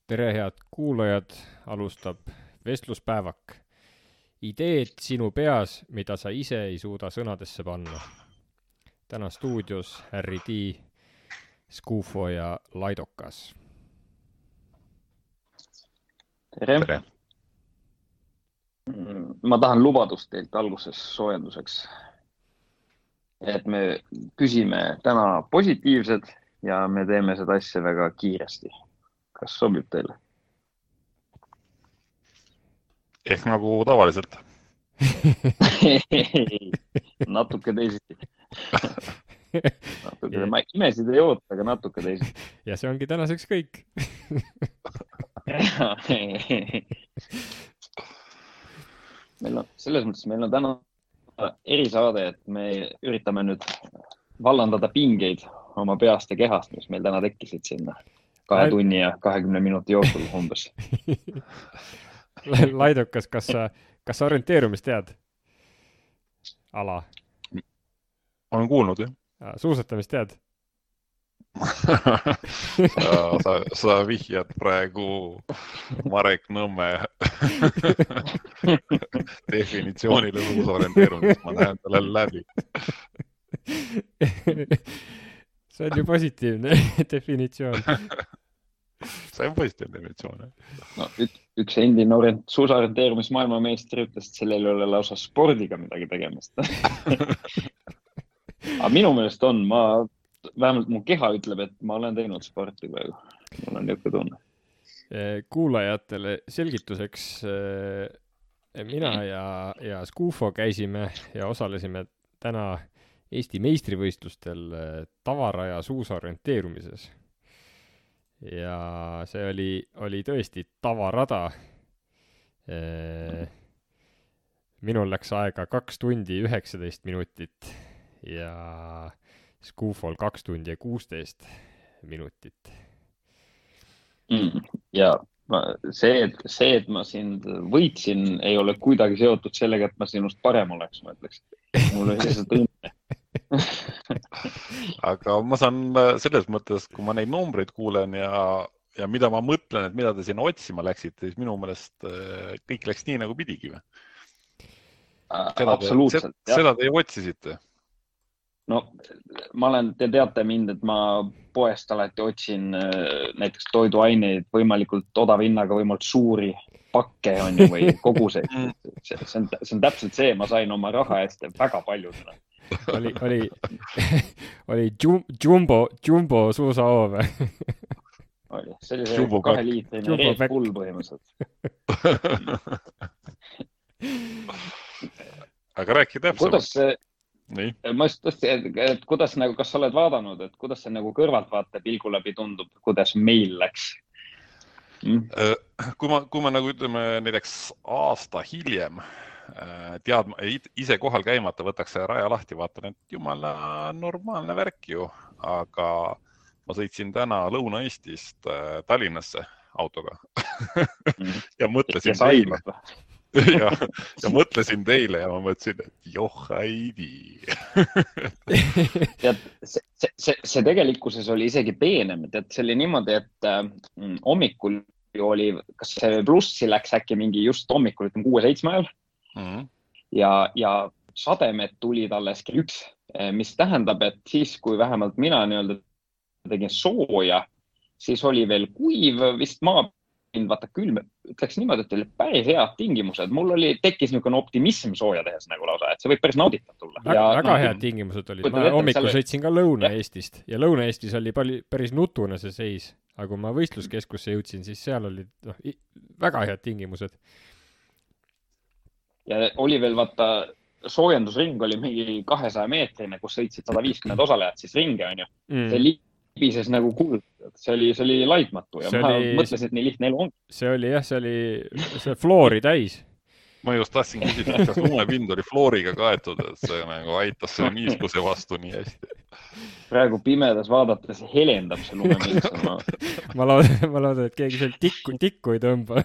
Tere, head kuulajad, alustab vestluspäevak. Ideed sinu peas, mida sa ise ei suuda sõnadesse panna. Täna stuudios Harry D, Skufo ja Laidokas. Tere. Ma tahan lubadust teilt alguses soojenduseks, et me küsime täna positiivsed ja me teeme seda asja väga kiiresti. Kas sobib teile? Ehk nagu tavaliselt. Natuke teisiti. Ma imesid ei oota, aga natuke teisiti. Ja see ongi tänaseks kõik. Selles mõttes meil on täna erisaade, et me üritame nüüd vallandada pingeid oma peast ja kehast, mis meil täna tekkisid sinna 2 tunni ja 20 minuti jooksul umbes. Laidokas, kas sa orienteerumist tead? Ala? Olen kuulnud, jah. Suusatamist tead? Sa vihjad praegu Marek Nõmme definitsioonile suusorienteerumist. Ma näen talle läbi. See on ju positiivne definitsioon. See on positiivne definitsioon. No, üks endine suusorienteerumis maailmameistri ütles, et sellel ei ole lausa spordiga midagi tegemist. Aga minu meelest on, vähemalt mu keha ütleb, et ma olen teinud sporti praegu. Mul on niisugune tunne. Kuulajatele selgituseks mina ja Skufo käisime ja osalesime täna Eesti meistrivõistlustel tavaraja suusorienteerumises. Ja see oli tõesti tavarada. Minul läks aega 2 tundi 19 minutit ja Skufol 2 tundi ja 16 minutit. Ja see, et ma sind võitsin, ei ole kuidagi seotud sellega, et ma sinust parem oleks, ma ütleks. Mul oli lihtsalt õnne. Aga ma saan selles mõttes, kui ma neid numbreid kuulen ja mida ma mõtlen, et mida te sinna otsima läksite, siis minu meelest kõik läks nii, nagu pidigi. Absoluutselt. Seda te otsisite? No, te teate mind, et ma poest alati otsin näiteks toiduaineid võimalikult odava hinnaga, võimalikult suuri pakke on ju, või koguseid. See on täpselt see, ma sain oma raha eest väga palju seda. Oli jumbo suusahoov. Oli, see oli see 2 liitrine Red Bull põhimõtteliselt. Aga rääki täpsemalt. Ma just tõesti, et kuidas nagu, kas sa oled vaadanud, et kuidas see nagu kõrvaltvaate pilgu läbi tundub, kuidas meil läks? Kui ma nagu ütleme näiteks aasta hiljem ise kohal käimata võtaks see raja lahti, vaatan, et jumala normaalne värk ju, aga ma sõitsin täna Lõuna-Eestist Tallinnasse autoga ja mõtlesin teile. Ja mõtlesin teile ja ma mõtlesin, et johaidi. See tegelikkuses oli isegi peenem, et see oli niimoodi, et hommikul oli, kas see plussi läks äkki mingi just hommikul, 6-7 ajal ja sademed tulid alles kell 1, mis tähendab, et siis, kui vähemalt mina tegin sooja, siis oli veel kuiv vist vaata külm, ütleks niimoodi, et oli päris head tingimused. Mul tekkis niisugune optimism sooja tehes nagu lausa, et see võib päris nauditav tulla. Väga head tingimused olid. Ma hommikul sõitsin ka Lõuna-Eestist ja Lõuna-Eestis oli päris nutune see seis. Aga kui ma võistluskeskusse jõudsin, siis seal oli väga head tingimused. Ja oli veel vaata, soojendusring oli mingi 200 meetrine, kus sõitsid 150 osalejat siis ringe, on ju. See libises nagu kuld. See oli laitmatu ja ma mõtlesin, et nii lihtne elu on. See oli see floori täis. Ma just tahtsin küsida, kas lumepind oli flooriga kaetud, et see nagu aitas selle niiskuse vastu nii hästi. Praegu pimedas vaadates helendab see lumepind. ma loodan, et keegi seal tikku ei tõmba.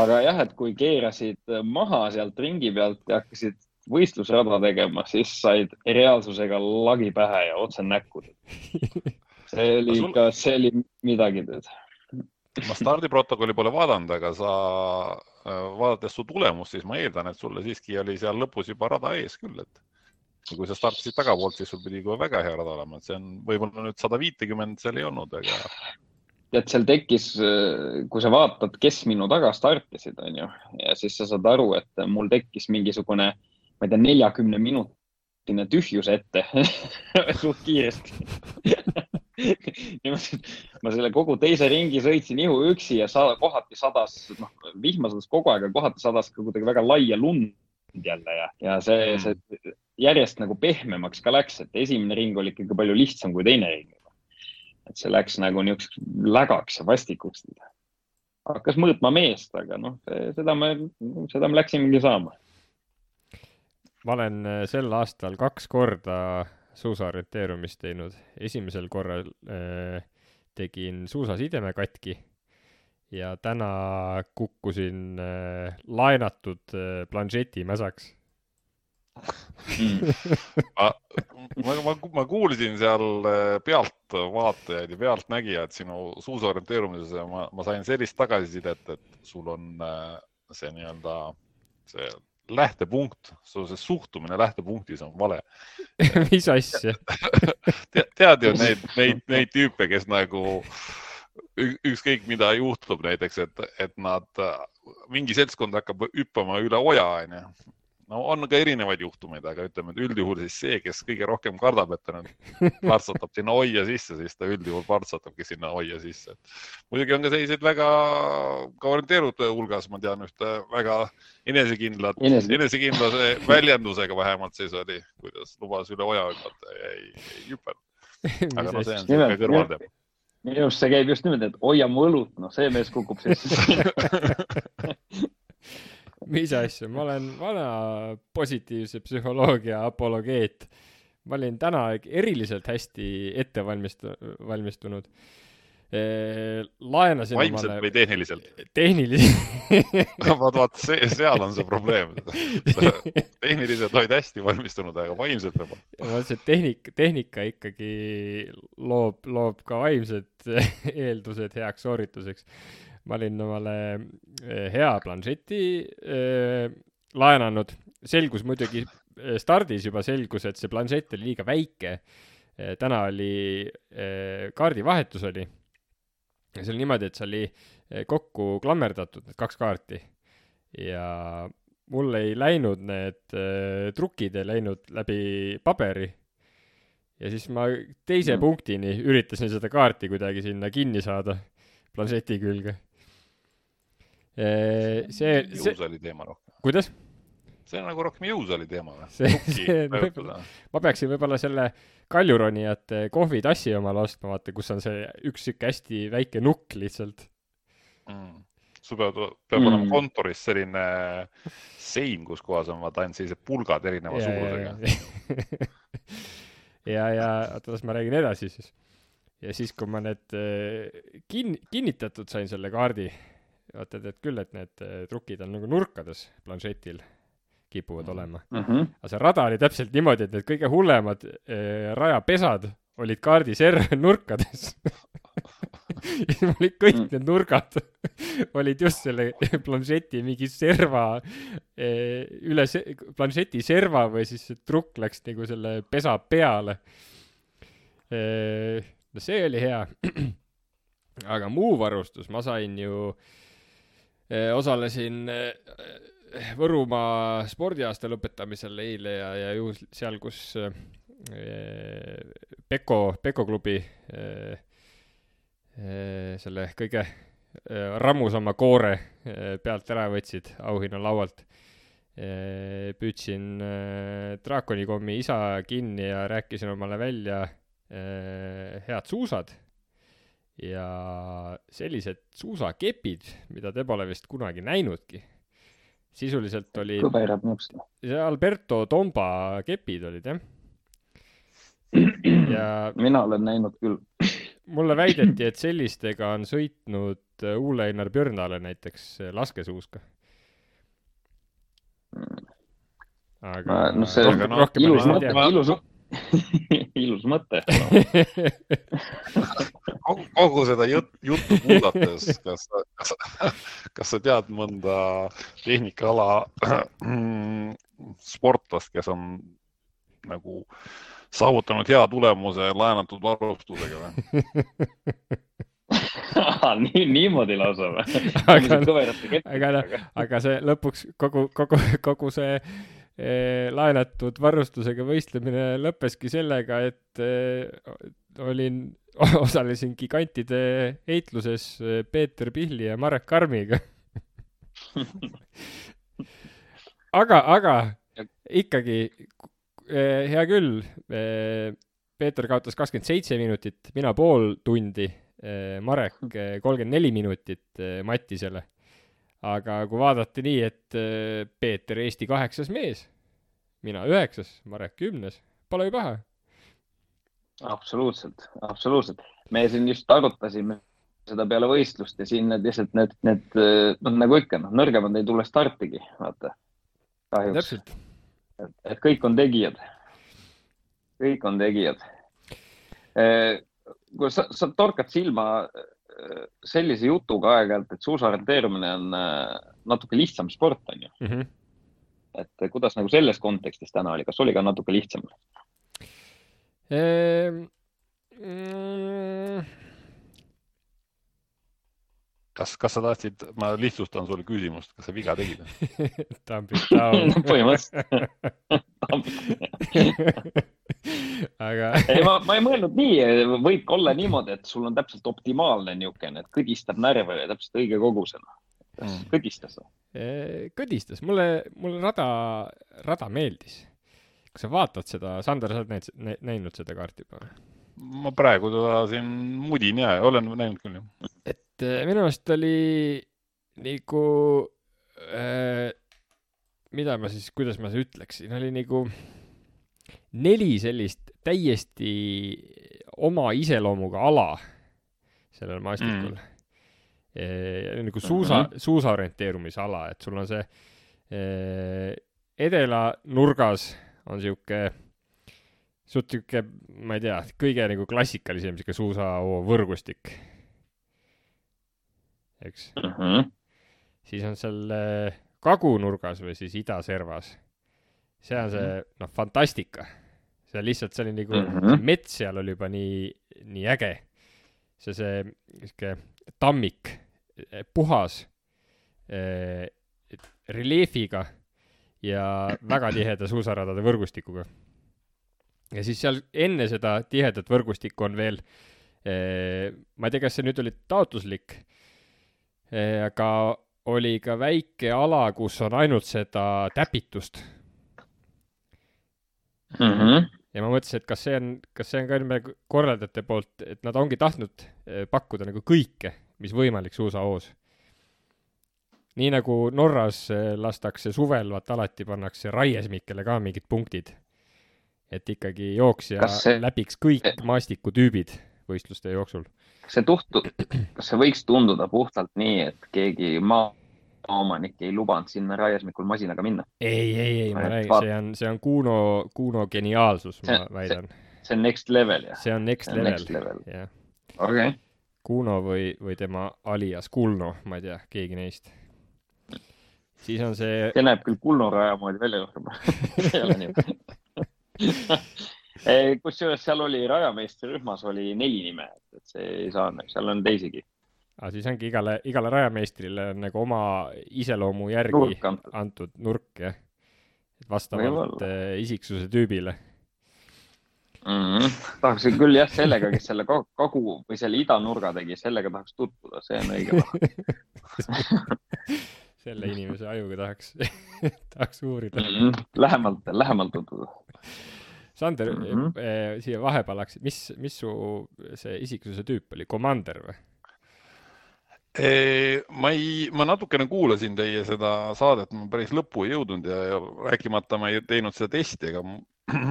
Aga jah, et kui keerasid maha sealt ringi pealt ja hakkasid võistlusrada tegema, siis said reaalsusega lagi pähe ja otse näkku. See oli midagi teed. Ma stardiprotokolli pole vaadanud, aga sa vaadates su tulemust, siis ma eeldan, et sulle siiski oli seal lõpus juba rada ees küll, et kui sa startisid tagapoolt, siis sul pidi juba väga hea rada olema, et see on võib-olla nüüd 150 seal ei olnud, aga... Tead, seal tekkis, kui sa vaatad, kes minu taga startisid, on ju, ja siis sa saad aru, et mul tekkis mingisugune, ma ei tea, 40 minutine tühjus ette suht kiiresti. Ma selle kogu teise ringi sõitsin ihu üksi ja kohati sadas, vihma sadas kogu aeg, kohati sadas ka kuidagi väga laia lund jälle ja see järjest nagu pehmemaks ka läks, et esimene ring oli ikkagi palju lihtsam kui teine ring. Et see läks nagu niisuguseks lägaks ja vastikuks. Hakkas mõõtma meest, aga seda me läksimegi saama. Ma olen sel aastal 2 korda suusaorienteerumist teinud. Esimesel korral tegin suusasideme katki ja täna kukkusin laenatud planšeti mäsaks. Ma kuulsin seal pealtvaatajaid ja pealtnägijad sinu suusaorienteerumises ja ma sain sellist tagasisidet, et sul on see nii-öelda see lähtepunkt, see suhtumine lähtepunktis on vale. Mis asja? Tead ju neid tüüpe, kes nagu ükskõik mida juhtub näiteks, et nad mingi seltskond hakkab hüppama üle oja, on ju. No on ka erinevaid juhtumeid, aga ütleme, et üldjuhul siis see, kes kõige rohkem kardab, et ta partsatab sinna oia sisse, siis ta üldjuhul partsatabki sinna oia sisse. Muidugi on ka selliseid väga ka orienteerute hulgas, ma tean ühte väga enesekindlase väljendusega vähemalt siis oli, kuidas lubas üle oja hüppata ja ei hüppanud. Aga see on see kõrvalteema. Minu arust see käib just niimoodi, et hoia mu õlut, see mees kukub sisse. Mis asja? Ma olen vana positiivse psühholoogia apologeet. Ma olin täna eriliselt hästi ette valmistunud. Laenasin vaimselt või tehniliselt? Tehniliselt. Vaat, seal on see probleem. Tehniliselt olid hästi valmistunud, aga vaimselt juba. See tehnika ikkagi loob ka vaimsed eeldused heaks soorituseks. Ma olin omale hea planšeti laenanud. Selgus muidugi, stardis juba selgus, et see planšett oli liiga väike. Täna oli kaardivahetus oli. Ja see oli niimoodi, et see oli kokku klammerdatud, need 2 kaarti. Ja mul ei läinud need trukid, ei läinud läbi paberi. Ja siis ma teise punktini üritasin seda kaarti kuidagi sinna kinni saada planšeti külge. Jõus oli teema rohkem. Kuidas? See on nagu rohkem jõus oli teema. Ma peaksin võib-olla selle kaljuronijate kohvitassi omale ostma, vaata, kus on see üks siuke hästi väike nukk lihtsalt. Sul peab olema kontoris selline sein, kus kohas on vaata ainult sellised pulgad erineva suurusega. ja otas ma räägin edasi siis. Ja siis, kui ma need kinnitatud sain selle kaardi, vaatad, et küll, et need trukid on nagu nurkades planšetil kipuvad olema. Aga see rada oli täpselt niimoodi, et need kõige hullemad rajapesad olid kaardi nurkades. Ja olid kõik need nurgad olid just selle planšeti mingi serva üle planšeti serva või siis see trukk läks nagu selle pesa peale. No see oli hea. Aga muu varustus, ma sain ju osalesin Võrumaa spordiaasta lõpetamisel eile ja ju seal, kus Peko klubi selle kõige rammusama koore pealt ära võtsid auhinna laualt. Püüdsin Draakonikommi isa kinni ja rääkisin omale välja head suusad ja sellised suusakepid, mida te pole vist kunagi näinudki. Sisuliselt oli kõverad nõuks. see Alberto Tomba kepid olid, jah. Ja mina olen näinud küll. mulle väideti, et sellistega on sõitnud Ole Einar Björnale näiteks laskesuuska. Aga No see rohkem ilus ma ei mõte, tea. ilus mõte. Kogu seda juttu kuulates, kas sa tead mõnda tehnikaala sportlast, kes on nagu saavutanud hea tulemuse laenatud varustusega või? Niimoodi lausa või? Aga see lõpuks kogu see laenatud varustusega võistlemine lõppeski sellega, et osalesin gigantide heitluses Peeter Pihli ja Marek Karmiga. aga ikkagi hea küll, Peeter kaotas 27 minutit, mina pool tundi, Marek 34 minutit Mattisele. Aga kui vaadati nii, et Peeter Eesti 8. mees, mina 9., Marek 10., pole ju paha. Absoluutselt. Me siin just arutasime seda peale võistlust ja siin need nagu ikka, nõrgemad ei tule startigi, vaata. Kahjuks. Täpselt. Et kõik on tegijad. Kui sa torkad silma sellise jutuga aeg-ajalt, et suusaorienteerumine on natuke lihtsam sport, on ju. Mm-hmm. Et kuidas nagu selles kontekstis täna oli? Kas oli ka natuke lihtsam? Kas sa tahtsid, ma lihtsustan sulle küsimust, kas sa viga tegid? Põhimõtteliselt. Aga... ma ei mõelnud nii, võib olla niimoodi, et sul on täpselt optimaalne niukene, et kõdistab närve täpselt õige kogusena. Kõdistas? Kõdistas. Mulle rada meeldis. Kui sa vaatad seda, Sander, sa oled näinud seda kaarti juba? Ma praegu seda siin mudin ja olen näinud küll. Et minu meelest oli nagu, kuidas ma see ütleksin, oli nagu 4 sellist täiesti oma iseloomuga ala sellel maastikul. Nagu suusaorienteerumisala, et sul on see edela nurgas on siuke, ma ei tea, kõige nagu klassikalisem siuke suusao võrgustik. Eks? Siis on seal kagunurgas või siis idaservas. See on see, fantastika. See lihtsalt, see oli nagu, mets seal oli juba nii äge. See tammik, puhas, reljeefiga ja väga tiheda suusaradade võrgustikuga. Ja siis seal enne seda tihedat võrgustikku on veel, ma ei tea, kas see nüüd oli taotluslik, aga oli ka väike ala, kus on ainult seda täpitust. Ja ma mõtlesin, et kas see on ka enne korraldajate poolt, et nad ongi tahtnud pakkuda nagu kõike, mis võimalik suusahoos. Nii nagu Norras lastakse suvel, vaat alati pannakse raiesmikele ka mingid punktid. Et ikkagi jooksja läbiks kõik maastikutüübid võistluste jooksul. Kas see võiks tunduda puhtalt nii, et keegi maaomanik ei lubanud sinna raiesmikul masinaga minna? Ei, ma räägin, see on Kuno geniaalsus, ma väidan. See on next level, jah? See on next level, jah. Okay. Kuno või tema alias Kulno, ma ei tea, keegi neist. Siis on see... See näeb küll Kulno raja moodi välja juhtuma. See ei ole nii. Kusjuures seal oli rajameistri rühmas oli 4 nime, et see ei saa, seal on teisigi. Siis ongi igale rajameistrile on nagu oma iseloomu järgi antud nurk, jah. Vastavalt isiksuse tüübile. Tahaksin küll jah sellega, kes selle kagu või selle idanurga tegi, sellega tahaks tutvuda, see on õige. Selle inimese ajuga tahaks uurida. Lähemalt tutvuda. Sander, siia vahepalaks, mis su see isiksuse tüüp oli? Commander või? Ma natukene kuulasin teie seda saadet, ma päris lõppu ei jõudnud ja rääkimata ma ei teinud seda testi, aga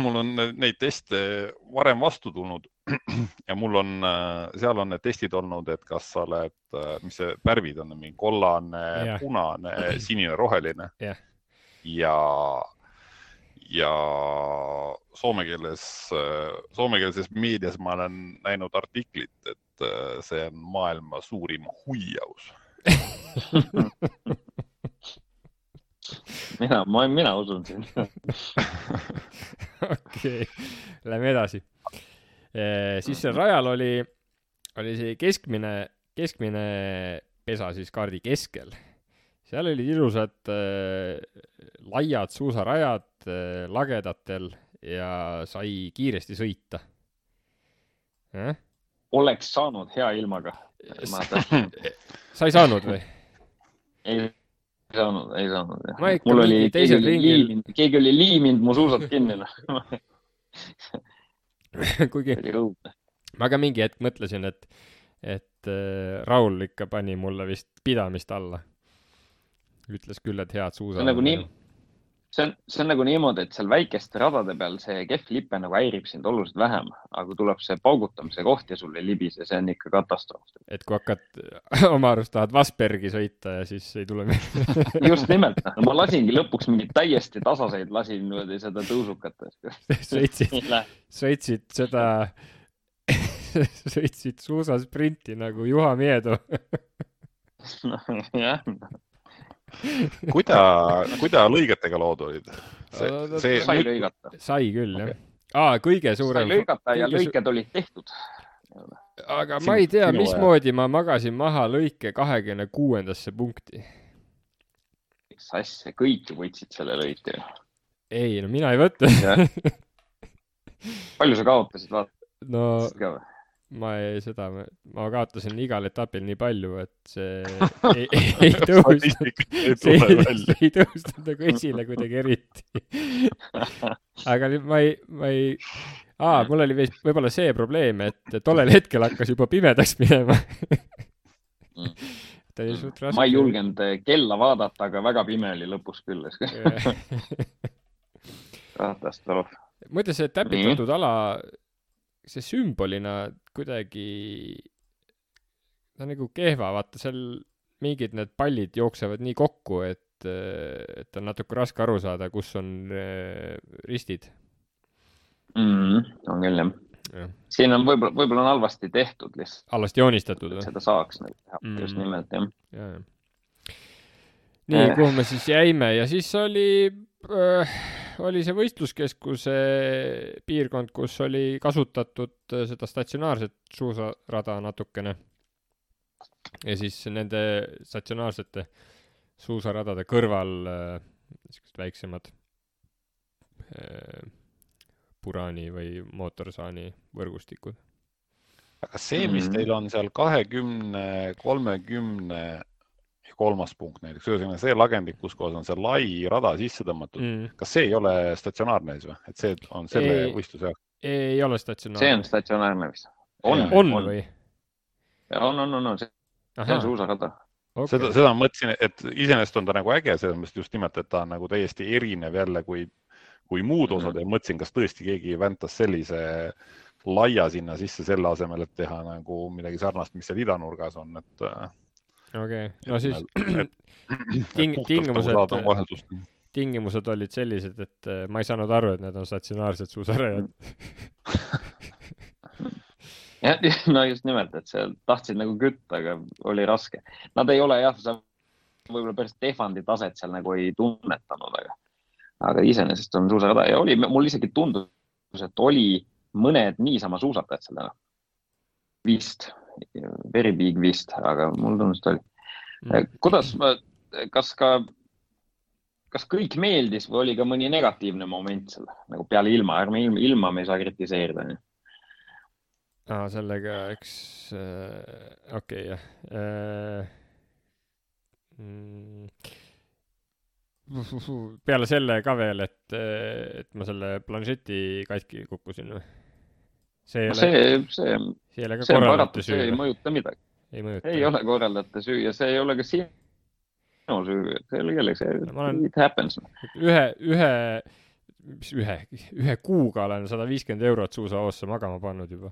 mul on neid teste varem vastu tulnud ja mul on, seal on need testid olnud, et kas sa oled, mis see värvid on, mingi kollane, punane, sinine, roheline ja soomekeelses meedias ma olen näinud artiklit, et see on maailma suurim huijaus. mina usun siin. Okei, lähme edasi. Siis seal rajal oli see keskmine pesa siis kaardi keskel. Seal olid ilusad laiad suusarajad lagedatel ja sai kiiresti sõita. Oleks saanud hea ilmaga. Sa ei saanud või? Ei saanud. Mul oli teisel ringil. Keegi oli liiminud mu suusad kinni. Kuigi ma ka mingi hetk mõtlesin, et Raul ikka pani mulle vist pidamist alla. Ütles küll, et head suusad. See on nagu niimoodi, et seal väikeste radade peal see kehv lipe nagu häirib sind oluliselt vähem, aga kui tuleb see paugutamise koht ja sul ei libise, see on ikka katastroof. Et kui hakkad oma arust tahad Vasbergi sõita ja siis ei tule Just nimelt. Ma lasingi lõpuks mingid täiesti tasaseid, lasin seda tõusukat. Sõitsid suusasprinti nagu Juha Miedo. Jah. Kuida lõigetega lood olid? Sai lõigata. Sai küll, jah. Kõige suurem... Sai lõigata ja lõiked olid tehtud. Aga ma ei tea, mismoodi ma magasin maha lõike 26. punkti. Mis asja, kõik võtsid selle lõike. Ei, no mina ei võtta. Palju sa kaotasid, vaata? No... Ma kaotasin igal etapil nii palju, et see ei tõustanud nagu esile kuidagi eriti. Aga mul oli võib-olla see probleem, et tollel hetkel hakkas juba pimedaks minema. Ma ei julgenud kella vaadata, aga väga pime oli lõpus küll. Katastroof. Muide, see täpitatud ala... see sümbolina kuidagi ta nagu kehva, vaata seal mingid need pallid jooksevad nii kokku, et on natuke raske aru saada, kus on ristid. On küll, jah. Siin on võib-olla on halvasti tehtud lihtsalt. Halvasti joonistatud. Seda saaks teha, just nimelt, jah. Nii, kuhu me siis jäime ja siis oli see võistluskeskuse piirkond, kus oli kasutatud seda statsionaarset suusarada natukene. Ja siis nende statsionaarsete suusaradade kõrval väiksemad puraani või mootorsaani võrgustikud. Aga see, mis teil on seal 20, 30 ja 3. punkt näiteks, see lagendik, kus kohas on see lai rada sisse tõmmatud, kas see ei ole statsionaarne siis või? Et see on selle võistluse jaoks? Ei ole statsionaarne. See on statsionaarne vist. On või? On. See on suusarada. Okay. Seda mõtlesin, et iseenesest on ta nagu äge, sellest just nimelt, et ta on nagu täiesti erinev jälle kui muud osad ja mõtlesin, kas tõesti keegi väntas sellise laia sinna sisse selle asemel, et teha nagu midagi sarnast, mis seal idanurgas on, et Okei, no siis tingimused olid sellised, et ma ei saanud aru, et need on statsionaarsed suusarajad. No just nimelt, et seal tahtsid nagu kütta, aga oli raske. Nad ei ole võib-olla päris Tehvandi taset seal nagu ei tunnetanud, aga iseenesest on suusarada ja mul isegi tundus, et oli mõned niisama suusatajad seal vist. Very big vist, aga mul tunnust oli. Kuidas, kas kõik meeldis või oli ka mõni negatiivne moment seal, nagu peale ilma me ei saa kritiseerida? Sellega, eks, okei, jah. peale selle ka veel, et ma selle planšeti katki kukkusin või? See ei ole ka korraldate süü. See ei mõjuta midagi. Ei ole korraldate süü ja see ei ole ka sinu süü. See ei ole kellegi, it happens. Ühe kuuga olen 150 € suusahoosse magama pannud juba.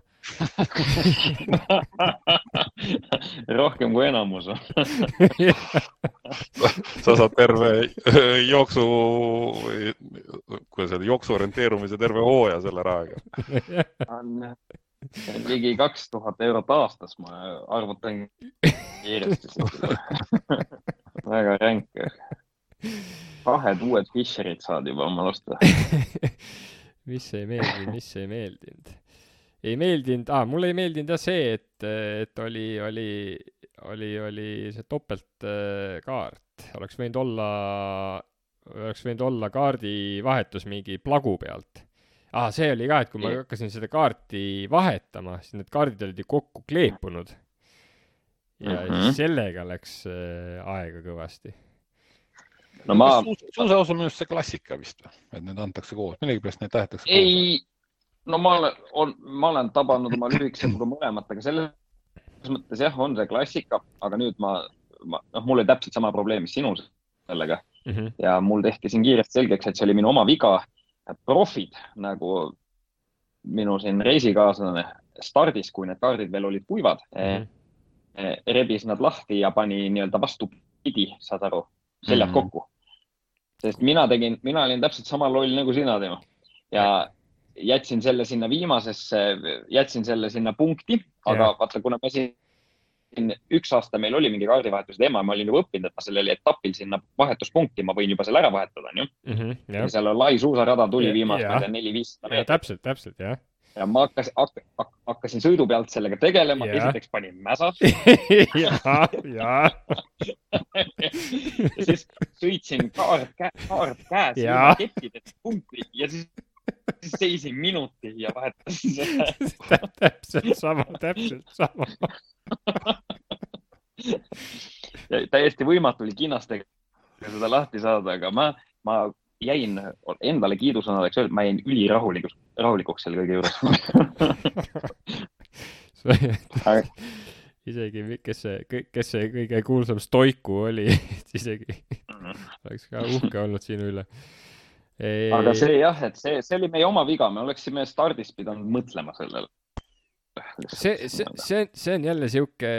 Rohkem kui enamus. Sa saad terve jooksu orienteerumise terve hooja selle rahaga. Ligi 2000 € aastas, ma arvutan kiiresti. Väga ränk. 2 uued Fisherid saad juba oma losta. Mis ei meeldinud? Ei meeldinud, mulle ei meeldinud jah see, et oli see topeltkaart. Oleks võinud olla kaardi vahetus mingi plagu pealt. See oli ka, et kui ma hakkasin seda kaarti vahetama, siis need kaardid olid ju kokku kleepunud. Ja sellega läks aega kõvasti. No suusaos on minust see klassika vist, et need antakse koos. Millegi pärast neid tahetakse koos? Ei, no ma olen tabanud oma lühikesega mõlemat, aga selles mõttes jah, on see klassika, aga nüüd mul oli täpselt sama probleem, mis sinul sellega. Ja mul tehti siin kiiresti selgeks, et see oli minu oma viga. Profid, nagu minu siin reisikaaslane stardis, kui need kaardid veel olid kuivad, rebis nad lahti ja pani nii-öelda vastupidi, saad aru, seljad kokku. Sest mina olin täpselt sama loll nagu sina tema. Ja jätsin selle sinna viimasesse, jätsin selle sinna punkti, aga vaata, kuna ma siin 1 aasta meil oli mingi kaardivahetus teema, ma olin juba õppinud, et ma sellel etapil sinna vahetuspunkti, ma võin juba selle ära vahetada, nii? Ja seal on lai suusarada tuli viimast 400-500 meetrit. Täpselt, jah. Ja ma hakkasin sõidu pealt sellega tegelema, esiteks panin mäsa. Ja siis sõitsin kaart käes ja kettidest punkti ja siis seisin minuti ja vahetasin selle. Täpselt sama. Ja täiesti võimatu oli kinnastega seda lahti saada, aga ma jäin endale kiidusõnadeks öelda, ma jäin ülirahulikuks selle kõige juures. Isegi, kes see kõige kuulsam stoiku oli, isegi oleks ka uhke olnud sinu üle. Aga see jah, et see oli meie oma viga, me oleksime stardis pidanud mõtlema sellele. See on jälle siuke,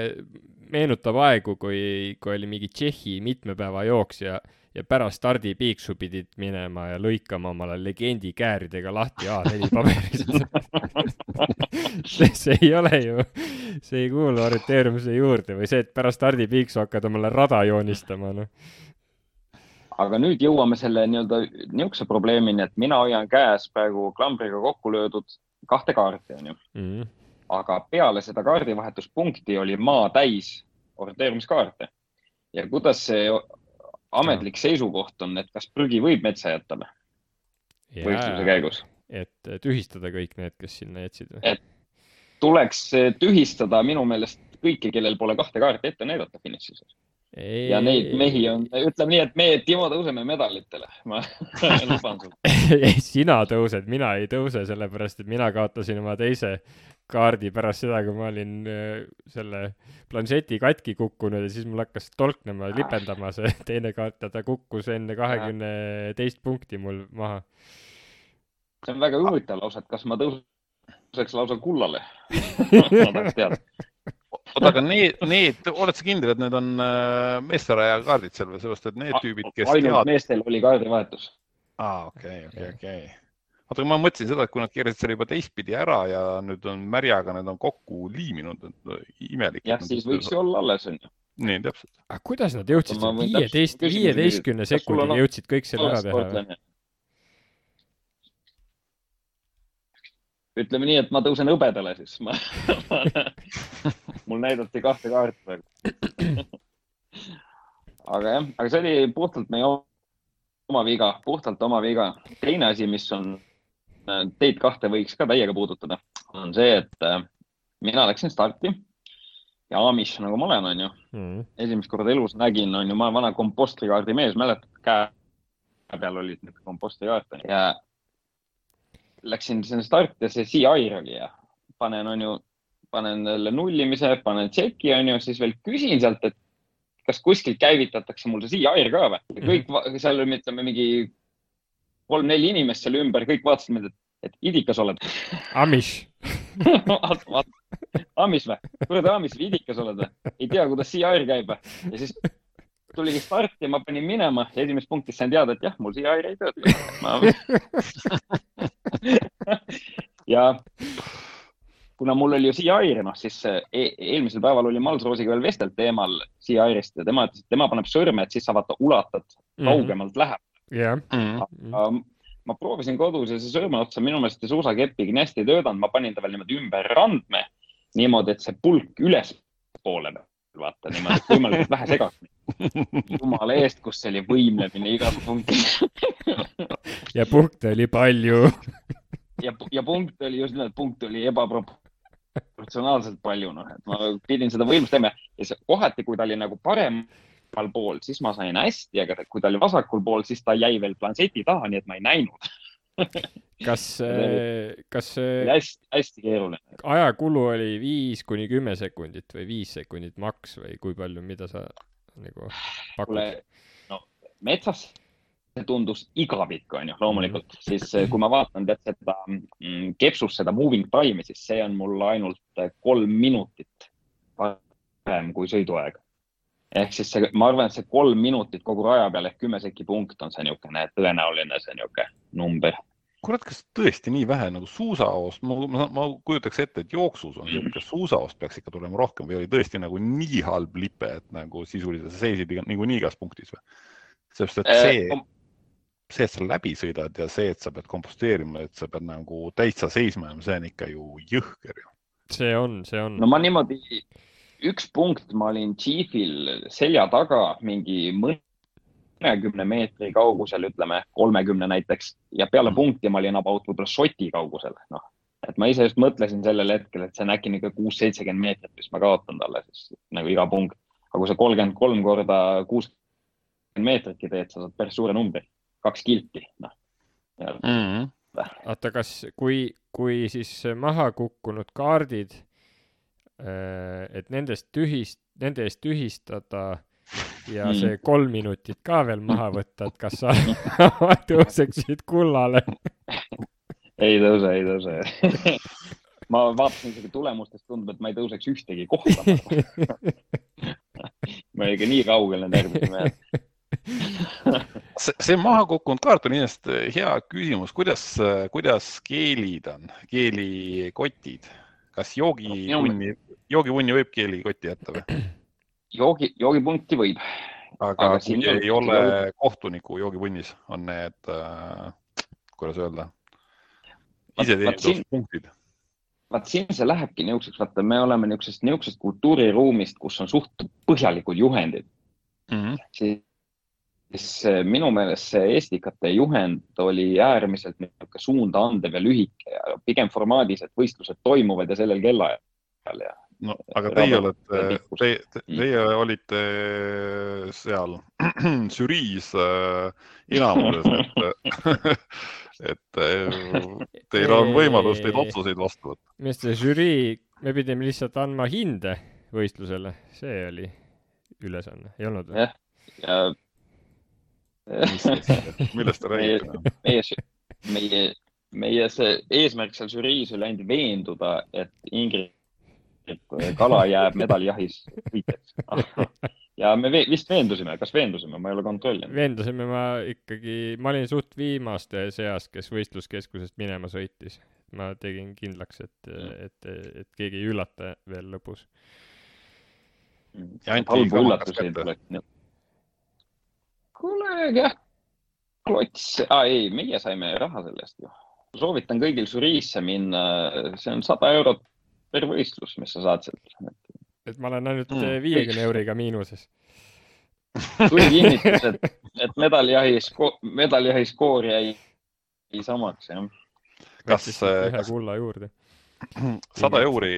meenutab aegu, kui oli mingi Tšehhi mitmepäeva jooks ja pärast stardipiiksu pidid minema ja lõikama omale legendi kääridega lahti A4 paberist. See ei ole ju, see ei kuulu orienteerumise juurde või see, et pärast stardipiiksu hakkad omale rada joonistama. No. Aga nüüd jõuame selle niisuguse probleemini, et mina hoian käes praegu klambriga kokku löödud 2 kaarti. On ju. Aga peale seda kaardivahetuspunkti oli maa täis orienteerumiskaarte. Ja kuidas see ametlik seisukoht on, et kas prügi võib metsa jätta võistluse käigus? Et tühistada kõik need, kes sinna jätsid? Et tuleks tühistada minu meelest kõiki, kellel pole 2 kaarti ette näidata finišis. Ja neid mehi on, ütleme nii, et meie Timo tõuseme medalitele. Ma luban sul. Sina tõused, mina ei tõuse, sellepärast, et mina kaotasin oma teise kaardi pärast seda, kui ma olin selle planšeti katki kukkunud ja siis mul hakkas tolknema, lipendama see teine kaart ja ta kukkus enne 22 punkti mul maha. See on väga huvitav lausa, et kas ma tõuseks lausa kullale? Ma tahaks teada. Aga need, oled sa kindel, et need on meesteraja kaardid seal või sellest, et need tüübid, kes ainult meestel oli kaardivahetus. Okei. Oota, ma mõtlesin seda, et kui nad keerasid selle juba teistpidi ära ja nüüd on märjaga, need on kokku liiminud, imelik. Jah, siis võiks ju olla alles. Nii, täpselt. Aga kuidas nad jõudsid 15 sekundiga jõudsid kõik selle ära teha? Ütleme nii, et ma tõusen õbedale siis. Mul näidati 2 kaarti praegu. Aga see oli puhtalt meie oma viga. Teine asi, mis on teid 2 võiks ka täiega puudutada, on see, et mina läksin starti ja Amish, nagu ma olen, on ju. Esimest korda elus nägin, on ju, ma olen vana kompostrikaardi mees, mäletad peal olid need kompostijaartani ja läksin sinna starti ja see CI oli ja panen jälle nullimise, panen tšeki siis veel küsin sealt, et kas kuskilt käivitatakse mul see CI ka või? Ja kõik seal oli, ütleme, mingi 3-4 inimest seal ümber, kõik vaatasid mind, et idikas oled. Amish. Amish või? Kuule, Amish, idikas oled või? Ei tea, kuidas CI käib või? Ja siis tuligi start ja ma panin minema ja esimest punktis sain teada, et jah, mul CI ei tööta. Ja kuna mul oli ju CI, siis eelmisel päeval oli Malsroosiga veel vestelt teemal CI-rist ja tema ütles, et tema paneb sõrme, et siis sa vaata ulatad kaugemalt läheb. Yeah. Ma proovisin kodus ja see sõrme otsa minu meelest suusakepiga nii hästi töötanud, ma panin ta veel niimoodi ümber randme, niimoodi, et see pulk üles poole vaata niimoodi, et võimalikult vähe segaks. Jumala eest, kus see oli võimlemine igas punktis. Ja punkte oli palju. Ja punkt oli just nimelt, punkt oli ebaproportsionaalselt palju, et ma pidin seda võimlust teema ja kohati, kui ta oli nagu paremal pool, siis ma sain hästi, aga kui ta oli vasakul pool, siis ta jäi veel planseti taha, nii et ma ei näinud. Kas hästi keeruline. Ajakulu oli 5-10 sekundit või 5 sekundit maks või kui palju, mida sa nagu pakud? No, metsas tundus igavik, loomulikult. Siis kui ma vaatan seda kepsus seda moving time'i, siis see on mul ainult 3 minutit parem kui sõiduaeg. Ehk siis ma arvan, et see 3 minutit kogu raja peal ehk 10 seki punkt on see niisugune tõenäoline see niisugune number. Kurat, kas tõesti nii vähe nagu suusaost? Ma kujutaks ette, et jooksus on niisugune suusaost peaks ikka tulema rohkem või oli tõesti nagu nii halb lipe, et nagu sisuliselt seisid nagu nii igas punktis või? Sest et see, et sa läbi sõidad ja see, et sa pead komposteerima, et sa pead nagu täitsa seisma, see on ikka ju jõhker. See on. No ma niimoodi, üks punkt ma olin Chiefil selja taga mingi 10 meetri kaugusel, ütleme 30 näiteks ja peale punkti ma olin about võib-olla šoti kaugusel. Et ma ise just mõtlesin sellel hetkel, et see on äkki 6-70 meetrit, mis ma kaotan talle siis nagu iga punkt. Aga kui sa 33 korda 60 meetritki teed, sa saad päris suure numbri. 2 kilti. Oota, kas kui siis maha kukkunud kaardid, et nende eest tühistada ja see 3 minutit ka veel maha võtta, et kas sa tõuseksid kullale? Ei tõuse. Ma vaatasin isegi tulemustest, tundub, et ma ei tõuseks ühtegi kohta. Ma ei nii kaugel need järgmisime. See maha kukkunud kaart on inimest hea küsimus. Kuidas keelid on? Keelikotid? Kas joogivunni võib keelikotti jätta või? Joogipunkti võib. Aga kui ei ole kohtuniku joogivunnis, on need, kuidas öelda, iseteeninduspunktid? Vaat siin see lähebki niisuguseks, vaata, me oleme niisugusest kultuuriruumist, kus on suht põhjalikud juhendid. Siis minu meelest see Estikate juhend oli äärmiselt suunda andev ja lühike ja pigem formaadis, et võistlused toimuvad ja sellel kellaajal. No, aga teie olite seal žüriis enamuses, et teil on võimalus neid otsuseid vastu võtta. Minu see žürii, me pidime lihtsalt andma hinde võistlusele, see oli ülesanne, ei olnud või? Ja millest te räägite? Meie see eesmärk seal žüriis oli ainult veenduda, et Ingrid kala jääb medalijahis võitjaks. Ja me vist veendusime, ma ei ole kontrollinud. Veendusime ma olin suht viimaste seas, kes võistluskeskusest minema sõitis. Ma tegin kindlaks, et keegi ei üllata veel lõpus. Ja anti kamakas kätte. Kuule, jah, klots. Ei, meie saime raha sellest ju. Soovitan kõigil žüriisse minna, see on 100 eurot per võistlus, mis sa saad sealt. Et ma olen ainult 50 euriga miinuses. Tuli kinnitus, et medaljahi skoor jäi samaks, jah. Kas ühe kulla juurde? 100 euri,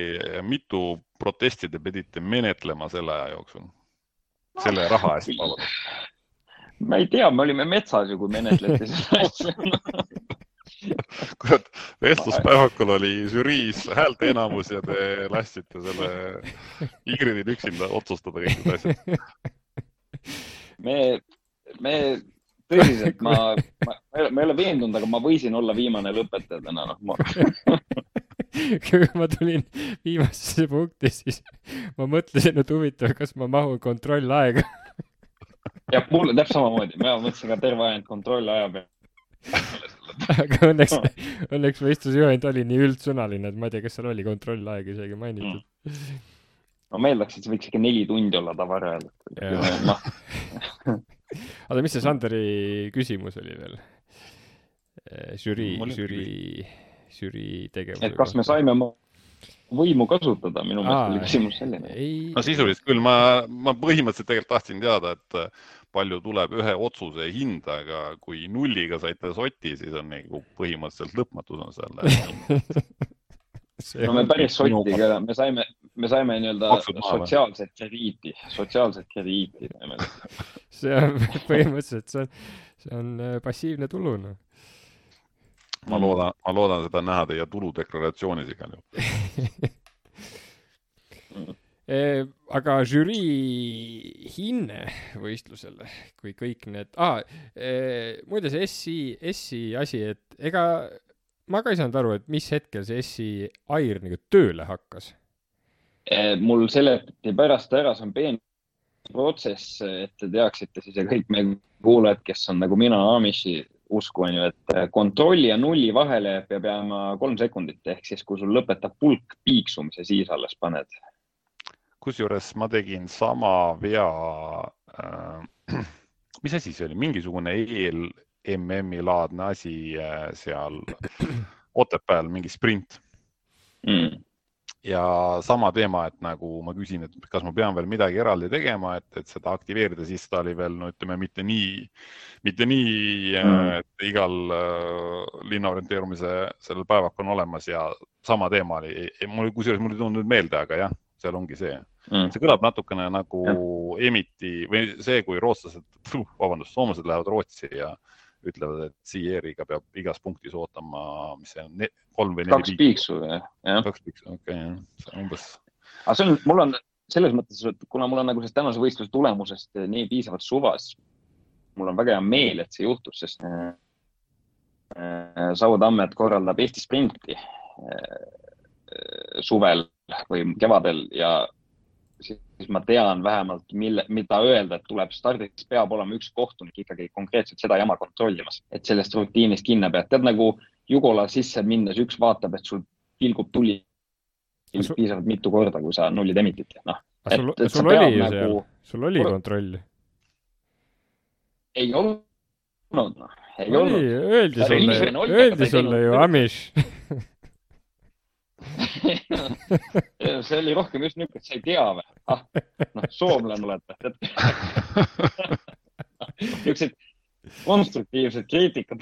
mitu protesti te pidite menetlema selle aja jooksul? Selle raha eest palun. ma ei tea, me olime metsas ju, kui menetleti seda asja. Kurat, vestluspäevakul oli žüriis häälte enamus ja te lastsite selle Ingridil üksinda otsustada kõik need asjad. Me tõsiselt, ma ei ole veendunud, aga ma võisin olla viimane lõpetaja täna. Kui ma tulin viimasesse punkti, siis ma mõtlesin, et huvitav, kas ma mahun kontrollaega. Ja mulle täpselt samamoodi. Ma mõtlesin ka terve ajand kontrollaja peale. Aga õnneks võistlusjuhend oli nii üldsõnaline, et ma ei tea, kas seal oli kontrollaeg isegi mainitud. Ma meeldaks, et see võiks ikka 4 tundi olla tavarajal. Aga mis see Sanderi küsimus oli veel? Žürii tegevus. Et kas me saime võimu kasutada? Minu meelest oli küsimus selline. No sisuliselt küll. Ma põhimõtteliselt tegelikult tahtsin teada, et palju tuleb ühe otsuse hinda, aga kui nulliga saite soti, siis on nagu põhimõtteliselt lõpmatus on selle. No me päris sotiga, me saime nii-öelda sotsiaalset krediiti. See on põhimõtteliselt, see on passiivne tulu. No. Ma loodan seda näha teie tuludeklaratsioonis igal juhul. Aga žürii hinne võistlusele, kui kõik need... muide see SI asi, et ega ma ka ei saanud aru, et mis hetkel see SI AIR nagu tööle hakkas. Mul seletati pärast ära, see on peen protsess, et te teaksite siis ja kõik meie kuulajad, kes on nagu mina Amishi usku on ju, et kontrolli ja nulli vahele peab jääma 3 sekundit, ehk siis kui sul lõpetab pulk piiksumise, siis alles paned. Kusjuures ma tegin sama vea, mis asi see oli, mingisugune ELMM-i laadne asi seal Otepääl, mingi sprint. Ja sama teema, et nagu ma küsin, et kas ma pean veel midagi eraldi tegema, et seda aktiveerida, siis ta oli veel, no ütleme, mitte nii, et igal linnaorienteerumise sellel päevak on olemas ja sama teema oli, kusjuures mul ei tulnud meelde, aga jah, seal ongi see. See kõlab natukene nagu Emiti või see, kui soomlased lähevad Rootsi ja ütlevad, et CR-iga peab igas punktis ootama, mis see on, 3 või 4 2 piiksu, jah. 2 piiksu, okei, see on umbes. Aga mul on selles mõttes, et kuna mul on nagu sellest tänase võistluse tulemusest nii piisavalt suvas, mul on väga hea meel, et see juhtus, sest Sautammet korraldab Eesti sprinti suvel või kevadel ja siis ma tean vähemalt, mida öelda, et tuleb stardiks peab olema üks kohtunik ikkagi konkreetselt seda jama kontrollimas, et sellest rutiinist kinni pead. Tead nagu Jugola sisse minnes üks vaatab, et sul pilgub tuli piisavalt mitu korda, kui sa nullid emitit. No, sul oli ju seal, sul oli kontroll. Ei olnud, noh. Ei olnud. Öeldi sulle ju Amish. See oli rohkem just niisugune, et sa ei tea või? Soomlane olete. Niisugused konstruktiivsed kriitikad.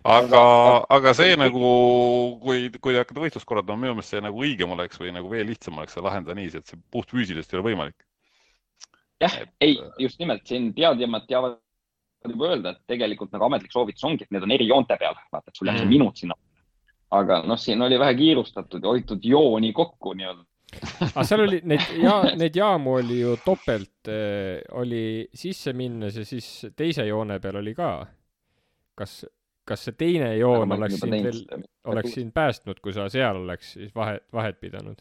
Aga see nagu, kui te hakkate võistlust korraldama, minu meelest see nagu õigem oleks või nagu veel lihtsam oleks see lahendada nii, et see puht füüsilist ei ole võimalik. Jah, ei, just nimelt siin teadjamad teavad juba öelda, et tegelikult nagu ametlik soovitus ongi, et need on eri joonte peal. Vaata, et sul jääb see minut sinna. Aga siin oli vähe kiirustatud ja hoitud jooni kokku nii-öelda. Aga seal oli, neid jaamu oli ju topelt, oli sisse minnes ja siis teise joone peal oli ka. Kas see teine joon oleks siin päästnud, kui sa seal oleks siis vahet pidanud?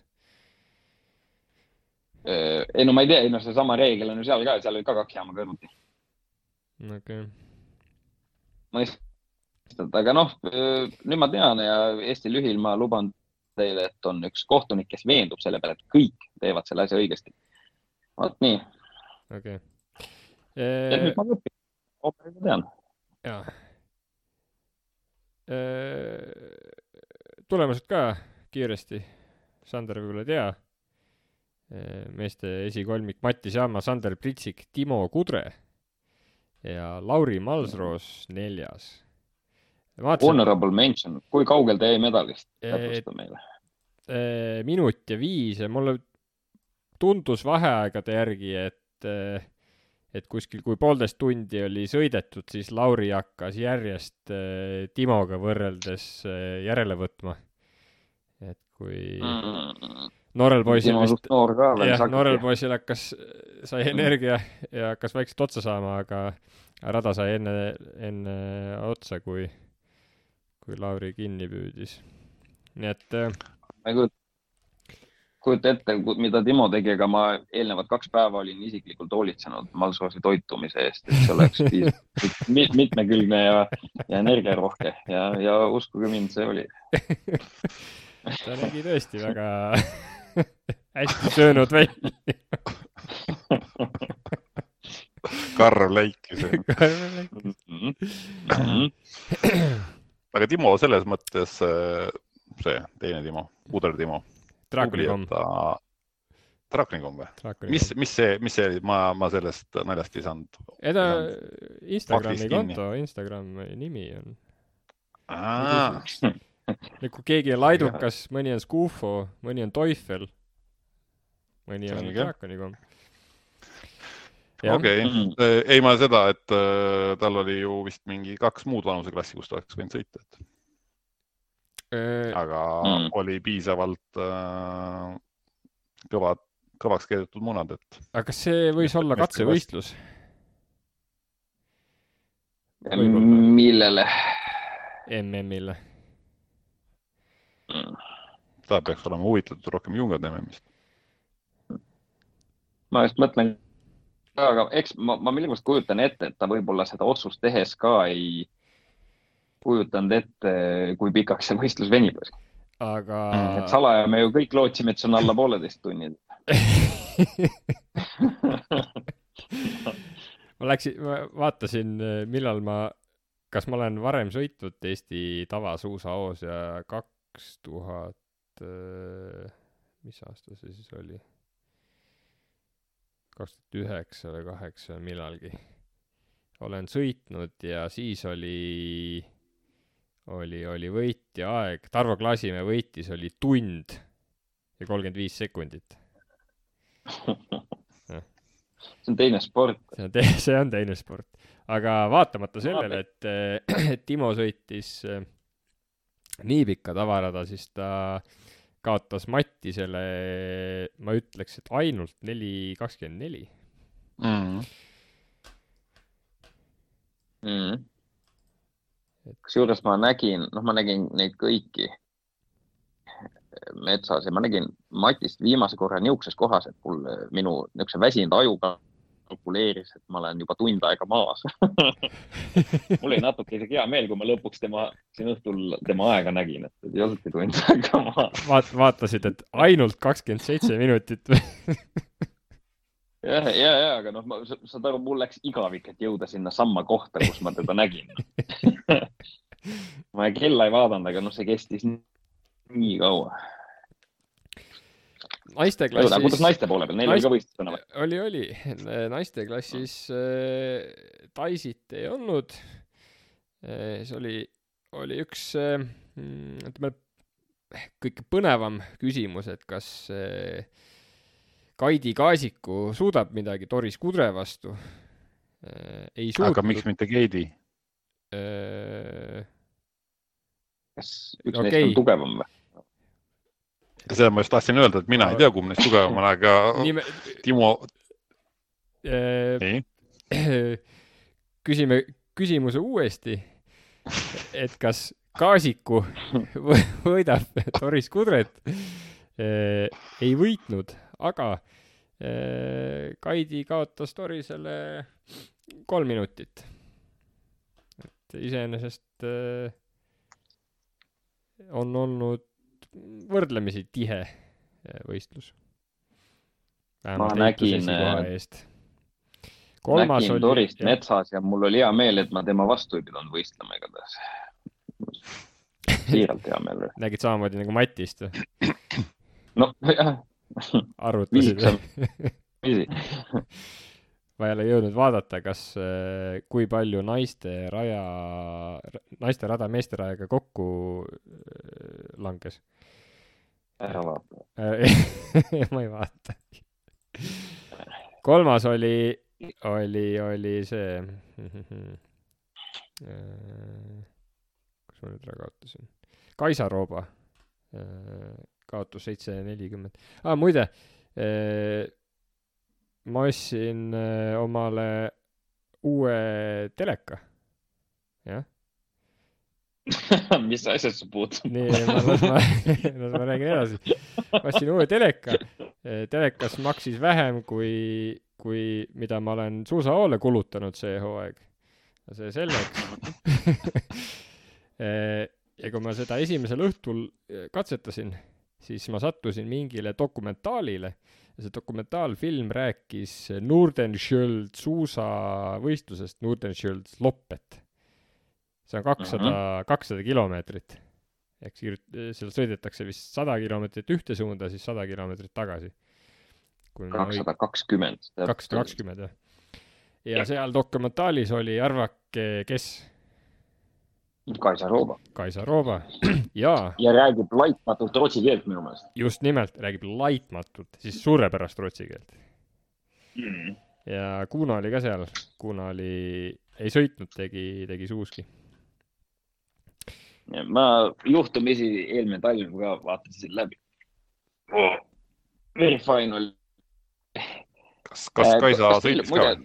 Ei, no ma ei tea, see sama reegel on ju seal ka, seal oli ka 2 jaama kõrvuti. Okei. Aga nüüd ma tean ja Eesti lühil ma luban teile, et on üks kohtunik, kes veendub selle peale, et kõik teevad selle asja õigesti. Vaat nii. Okei. Ja nüüd ma õpin. Ooperiga tean. Jaa. Tulemused ka kiiresti. Sander võib-olla tea. Meeste esikolmik Mattis Jaama, Sander Pritsik, Timo Kudre ja Lauri Malsroos 4. Honorable mention. Kui kaugel te jäi medalist? Täpsusta meile. Minut ja 5 ja mulle tundus vaheaegade järgi, et et kuskil, kui 1,5 tundi oli sõidetud, siis Lauri hakkas järjest Timoga võrreldes järele võtma. Et kui noorel poisil vist, noorel poisil sai energia ja hakkas vaikselt otsa saama, aga rada sai enne otsa, kui Lauri kinni püüdis. Nii et ma ei kujuta ette, mida Timo tegi, aga ma eelnevad 2 päeva olin isiklikult hoolitsenud Malsoosi toitumise eest, et see oleks mitmekülgne ja energiarohke ja uskuge mind, see oli. Ta nägi tõesti väga hästi söönud välja. Karv läikis. Aga Timo selles mõttes, see teine Timo, Puder Timo. Drakonikom või? Mis see oli? Ma sellest naljast ei saanud. Instagrami konto, Instagrami nimi on. Kui keegi on laidukas, mõni on Skufo, mõni on Teufel, mõni on Drakonikom. Okei. Ei ma seda, et tal oli ju vist mingi 2 muud vanuseklassi, kus ta oleks võinud sõita. Aga oli piisavalt kõvaks keedetud munad, et... Aga kas see võis olla katsevõistlus? Millele? MM-ile. Ta peaks olema huvitatud rohkem jungade MM-ist. Ma just mõtlen, aga eks ma millegipärast kujutan ette, et ta võib-olla seda otsust tehes ka ei kujutanud ette, kui pikaks see võistlus venib. Aga... Et salaja me ju kõik lootsime, et see on alla 1,5 tunnid. ma vaatasin, millal kas ma olen varem sõitnud Eesti tavasuusahoos ja 2000, mis aasta see siis oli? 2009 või 2008 millalgi. Olen sõitnud ja siis oli võitja aeg. Tarvo Klaasimäe võitis, oli 1 tund ja 35 sekundit. See on teine sport. See on teine sport. Aga vaatamata sellele, et Timo sõitis nii pikka tavarada, siis ta kaotas Mattisele, ma ütleks, et ainult 4.24. Kusjuures ma nägin neid kõiki metsas ja ma nägin Matist viimase korra niisuguses kohas, et minu niisuguse väsinud aju kalkuleeris, et ma olen juba tund aega maas. Mul oli natuke isegi hea meel, kui ma lõpuks siin õhtul tema aega nägin, et ei olnudki tund aega maas. Vaatasid, et ainult 27 minutit või? Ja, aga saad aru, mul läks igavik, et jõuda sinna samma kohta, kus ma teda nägin. Ma kella ei vaadanud, aga see kestis nii kaua. Naisteklassis... Kuidas naiste poole peal? Neil oli ka võistlus? Oli. Naisteklassis Taisit ei olnud. See oli üks kõige põnevam küsimus, et kas Kaidi Kaasiku suudab midagi Doris Kudre vastu. Ei suutnud. Aga miks mitte Keidi? Kas üks neist on tugevam või? Seda ma just tahtsin öelda, et mina ei tea, kumb neist tugevam on, aga Timo... Küsime küsimuse uuesti, et kas Kaasiku võidab Doris Kudret? Ei võitnud, aga Kaidi kaotas Dorisele 3 minutit. Et iseenesest on olnud võrdlemisi tihe võistlus. Ma nägin Dorist metsas ja mul oli hea meel, et ma tema vastu ei pidanud võistlema igatahes. Siiralt hea meel. Nägid samamoodi nagu Matist või? No, jah. Arvutasid. Ma ei ole jõudnud vaadata, kui palju naiste rada meeste rajaga kokku langes. Ära vaata. Ma ei vaata. 3. oli oli see kus ma nüüd ära kaotasin? Kaisa Rooba kaotus 740. Muide, ma ostsin omale uue teleka. Jah. Mis asjad sa puutub? Nii, ma räägin edasi. Ma ostsin uue teleka. Telekas maksis vähem kui mida ma olen suusahoole kulutanud see hooaeg. See selleks. Ja kui ma seda esimesel õhtul katsetasin, siis ma sattusin mingile dokumentaalile. Ja see dokumentaalfilm rääkis Nordenskiöld suusavõistlusest, Nordenskiöld Loppet. See on 200 kilomeetrit. Ehk seal sõidetakse vist 100 kilomeetrit ühte suunda, siis 100 kilomeetrit tagasi. 220. 220, jah. Ja seal dokumentaalis oli, arvake, kes? Kaisa Rooba. Kaisa Rooba, jaa. Ja räägib laitmatult rootsi keelt minu meelest. Just nimelt, räägib laitmatult, siis suurepärast rootsi keelt. Ja Kuno oli ka seal. Kuno ei sõitnud, tegi suuski. Ma juhtumisi eelmine talv ka vaatasin läbi. Very fine oli. Kas Kaisa sõitis ka?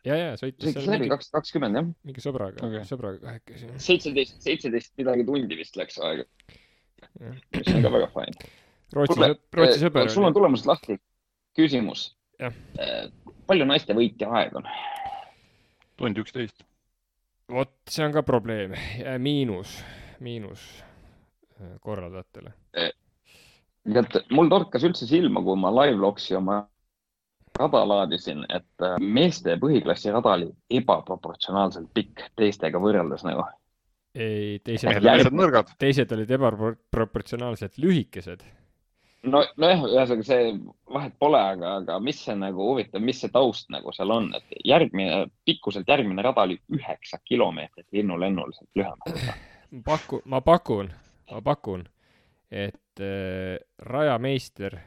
Ja, sõitis läbi 220, jah. Mingi sõbraga kahekesi. 17 midagi tundi vist läks aega. Mis on ka väga fine. Rootsi sõber. Sul on tulemused lahti. Küsimus. Ja. Palju naiste võitja aeg on? Tund 11. Vot, see on ka probleem. Miinus korraldajatele. Mul torkas üldse silma, kui ma live-logsi oma rada laadisin, et meeste põhiklassi rada oli ebaproportsionaalselt pikk teistega võrreldes nagu. Ei, teised olid ebaproportsionaalselt lühikesed. No jah, ühesõnaga see vahet pole, aga mis see nagu huvitav, mis see taust nagu seal on, et pikkuselt järgmine rada oli 9 kilomeetrit linnulennuliselt lühem. Ma pakun, et rajameister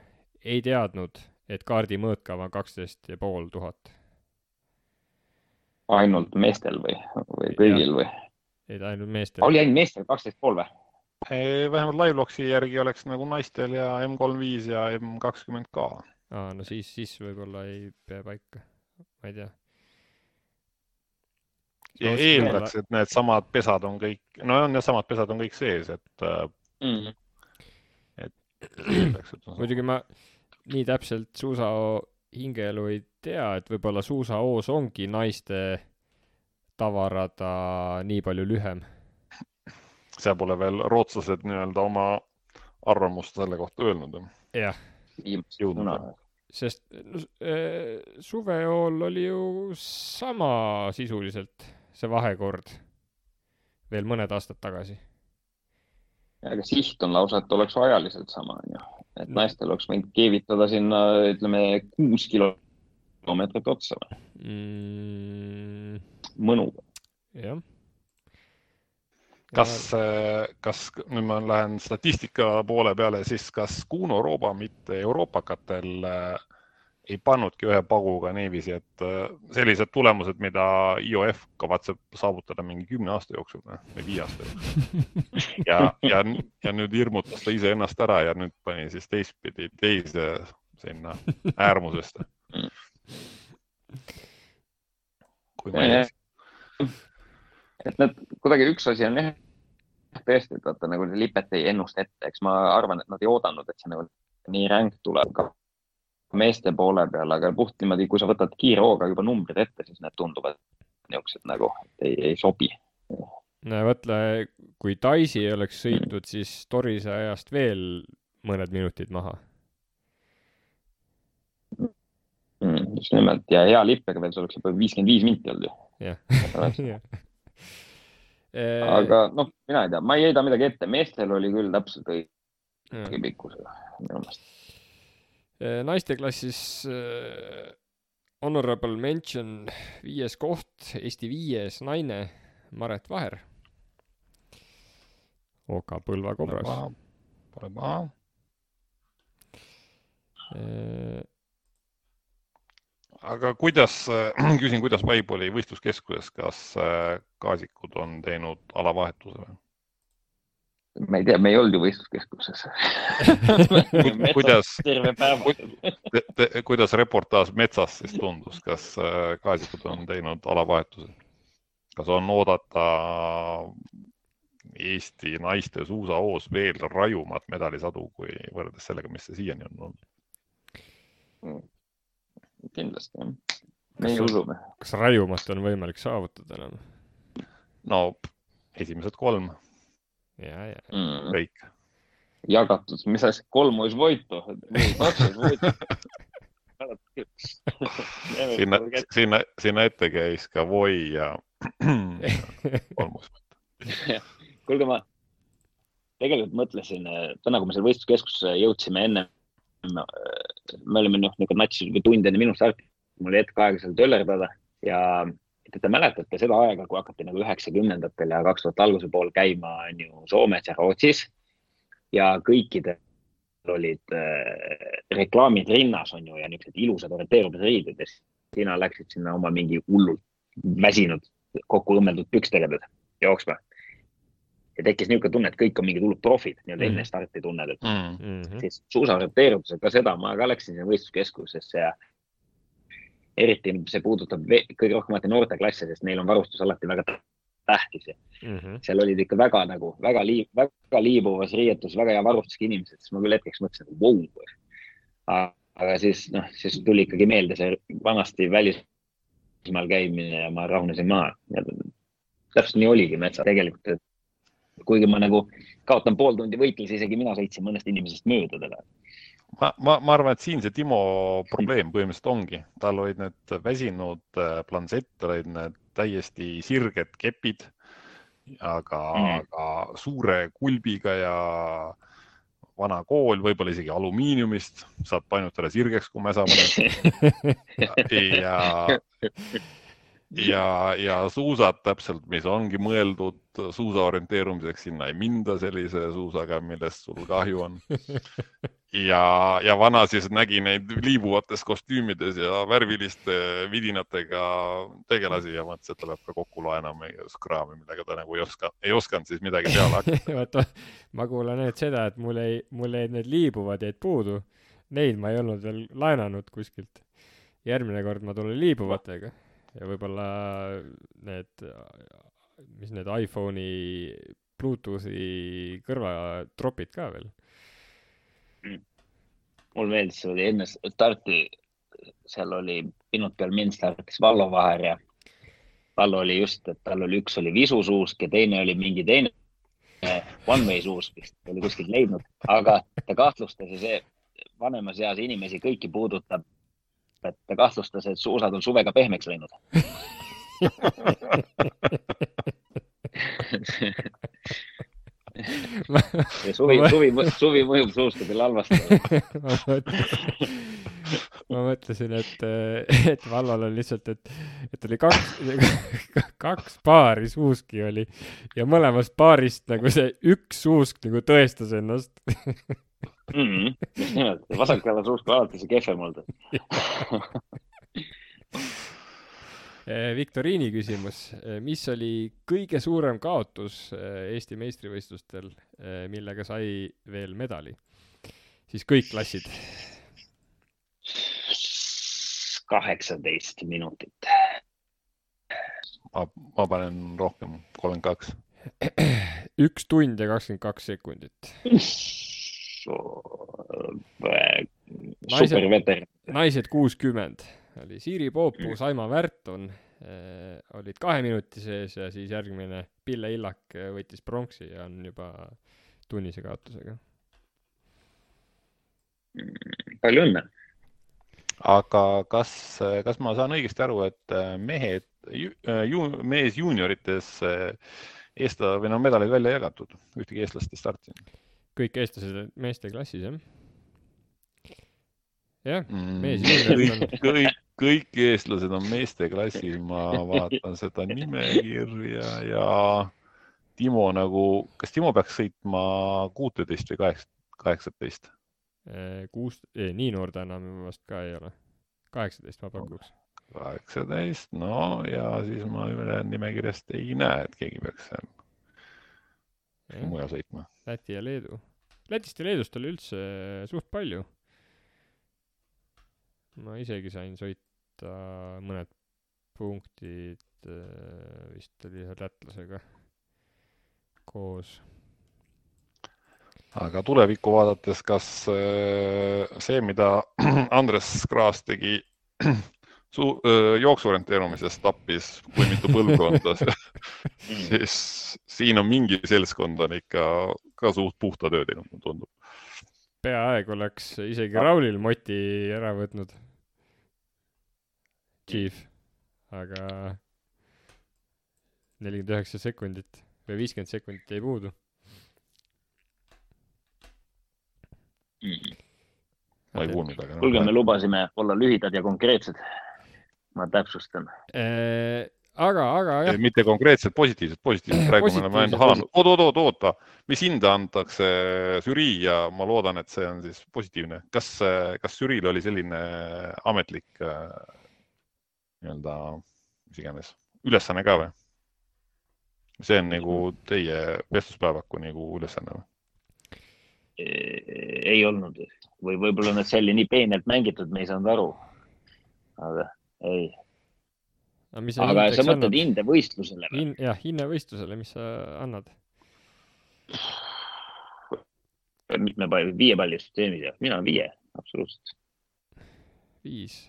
ei teadnud, et kaardi mõõtkav on 12,500. Ainult meestel või kõigil või? Ei, ainult meestel. Oli ainult meestel 12,5 või? Vähemalt live-logsi järgi oleks nagu naistel ja M35 ja M20 ka. No siis võib-olla ei pea paika. Ma ei tea. Eeldaks, et need samad pesad on kõik, samad pesad on kõik sees, et muidugi ma nii täpselt suusao hingeelu ei tea, et võib-olla suusaoos ongi naiste tavarada nii palju lühem. See pole veel rootslased nii-öelda oma arvamust selle kohta öelnud. Jah. Sest suvejool oli ju sama sisuliselt see vahekord veel mõned aastad tagasi. Aga siht on lausa, et oleks ajaliselt sama. Et naistel oleks võinud keevitada sinna, ütleme, 6 kilomeetrit otsa või? Mõnuga. Jah. Kas nüüd ma lähen statistika poole peale, siis kas Kuno Rooba mitte Euroopakatel ei pannudki ühe paguga niiviisi, et sellised tulemused, mida IOF kavatseb saavutada mingi 10 aasta jooksul või 5 aasta jooksul. Ja nüüd hirmutas ta ise ennast ära ja nüüd pani siis teise sinna äärmusest. Kui ma ei et need kuidagi üks asi on jah, tõesti, et vaata nagu lipet ei ennust ette, eks ma arvan, et nad ei oodanud, et see nagu nii ränk tuleb ka meeste poole peale, aga puht niimoodi, kui sa võtad kiire hooga juba numbrid ette, siis need tunduvad niisugused nagu, et ei sobi. No võtle, kui Taisi ei oleks sõitnud, siis Torise ajast veel mõned minutid maha. Just nimelt, ja hea lippega veel, see oleks juba 55 minti olnud ju. Jah. Aga mina ei tea, ma ei heida midagi ette, meestel oli küll täpselt õige pikkusega minu meelest. Naiste klassis honorable mention 5. koht, Eesti 5. naine Maret Vaher. Oka Põlva Kobras. Pole maha. aga küsin, kuidas vibe oli võistluskeskuses, kas Kaasikud on teinud alavahetuse või? Ma ei tea, me ei olnud ju võistluskeskuses. Kuidas reportaaž metsas siis tundus, kas Kaasikud on teinud alavahetuse? Kas on oodata Eesti naiste suusahoos veel rajumat medalisadu kui võrreldes sellega, mis see siiani on olnud? Kindlasti, jah. Me usume. Kas rajumat on võimalik saavutada enam? No, esimesed 3. Ja. Kõik. Jagatud, mis asja, 3 olisi voittu. Sinna ette käis ka Voi ja 3 olisi voittu. Kuulge, ma tegelikult mõtlesin, täna kui me selle võistluskeskusse jõudsime enne, me olime natsis tund enne minu starti, mul oli hetk aega seal töllerdada ja te mäletate seda aega, kui hakati 90-ndatel ja 2000 alguse pool käima Soomes ja Rootsis ja kõikidel olid reklaamid rinnas ja niisugused ilusad orienteerumisriided ja sina läksid sinna oma mingi hullult väsinud kokku õmmeldud pükstega jooksma. Ja tekkis niisugune tunne, et kõik on mingid hullud profid, enne starti tunned, et siis suusaorienteerumisega ka seda, ma ka läksin sinna võistluskeskusesse ja eriti see puudutab kõige rohkem noorteklasse, sest neil on varustus alati väga tähtis. Seal olid ikka väga liibuvas riietus, väga hea varustusega inimesed, siis ma küll hetkeks mõtlesin, et wow. Aga siis tuli ikkagi meelde see vanasti välismaal käimine ja ma rahunesin maha. Täpselt nii oligi metsa tegelikult, et kuigi ma kaotan pool tundi võitles, isegi mina sõitsin mõnest inimesest mööda teda. Ma arvan, et siin see Timo probleem põhimõtteliselt ongi. Tal olid need väsinud plansett, olid need täiesti sirged kepid, aga suure kulbiga ja vana kool, võib-olla isegi alumiiniumist, saab painutada sirgeks, kui me saame. Ja suusad täpselt, mis ongi mõeldud suusa orienteerumiseks, sinna ei minda sellise suusaga, millest sul kahju on. Ja vana siis nägi neid liibuvates kostüümides ja värviliste vidinatega tegelasi ja mõtles, et ta peab ka kokku laenama ja skraami, millega ta ei osanud siis midagi peale hakata. Ma kuulan nüüd seda, et mul jäid need liibuvad jäid puudu. Neid ma ei olnud veel laenanud kuskilt. Järgmine kord ma tulen liibuvatega. Ja võib-olla need iPhone'i Bluetoothi kõrvatropid ka veel. Mul meeldis, see oli enne starti, seal oli minut peal mind startis Vallo Vaher ja Vallo oli just, et tal oli üks oli visusuusk ja teine oli mingi teine one-way suusk, mis oli kuskilt leidnud, aga ta kahtlustas ja see vanemas eas inimesi kõiki puudutab, et ta kahtlustas, et suusad on suvega pehmeks läinud. Ja suvi mõjub suustadel halvasti. Ma mõtlesin, et Vallal on lihtsalt, et oli kaks paari suuski oli ja mõlemast paarist see üks suusk tõestas ennast. Just nimelt, vasakala suusk alati see kehvem olnud. Viktoriini küsimus. Mis oli kõige suurem kaotus Eesti meistrivõistlustel, millega sai veel medali? Siis kõik klassid. 18 minutit. Ma panen rohkem, 32. 1 tund ja 22 sekundit. Superveter. Naised 60. Oli Siiri Poopu, Saima Värton olid 2 minuti sees ja siis järgmine Pille Illak võttis pronksi ja on juba tunnise kaotusega. Palju õnne. Aga kas ma saan õigesti aru, et mees juuniorites medalid välja jagatud? Ühtegi eestlast ei startinud? Kõik eestlased meeste klassis, jah? Jah, mees juuniorites on. Kõik eestlased on meeste klassis, ma vaatan seda nimekirja ja Timo kas Timo peaks sõitma 16 või 18? Nii noor ta enam vast ka ei ole. 18 ma pakuks. 18, no ja siis ma nimekirjast ei näe, et keegi peaks mujal sõitma. Läti ja Leedu. Lätist ja Leedust oli üldse suht palju. Ma isegi sain sõita mõned punktid, vist oli ühe lätlasega koos. Aga tulevikku vaadates, kas see, mida Andres Kraas tegi jooksuorienteerumises tappis, kui mitu põlvkonda, siis siin on mingi seltskond on ikka ka suht puhta töö teinud, tundub. Peaaeg oleks isegi Raulil moti ära võtnud. Chief, aga 49 sekundit või 50 sekundit jäi puudu. Ma ei kuulnud, aga... Kuulge, me lubasime olla lühidad ja konkreetsed. Ma täpsustan. Aga jah. Mitte konkreetselt, positiivselt. Praegu me oleme ainult halanud. Oota. Mis hinda antakse žürii ja ma loodan, et see on siis positiivne. Kas žüriil oli selline ametlik nii-öelda, mis iganes, ülesanne ka või? See on nagu teie vestluspäevaku nagu ülesanne või? Ei olnud. Või võib-olla need see oli nii peenelt mängitud, me ei saanud aru. Aga ei. Aga sa mõtled hindevõistlusele? Jah, hindevõistlusele, mis sa annad? Mitme palju? 5 palli süsteemis ja mina 5, absoluutselt. 5?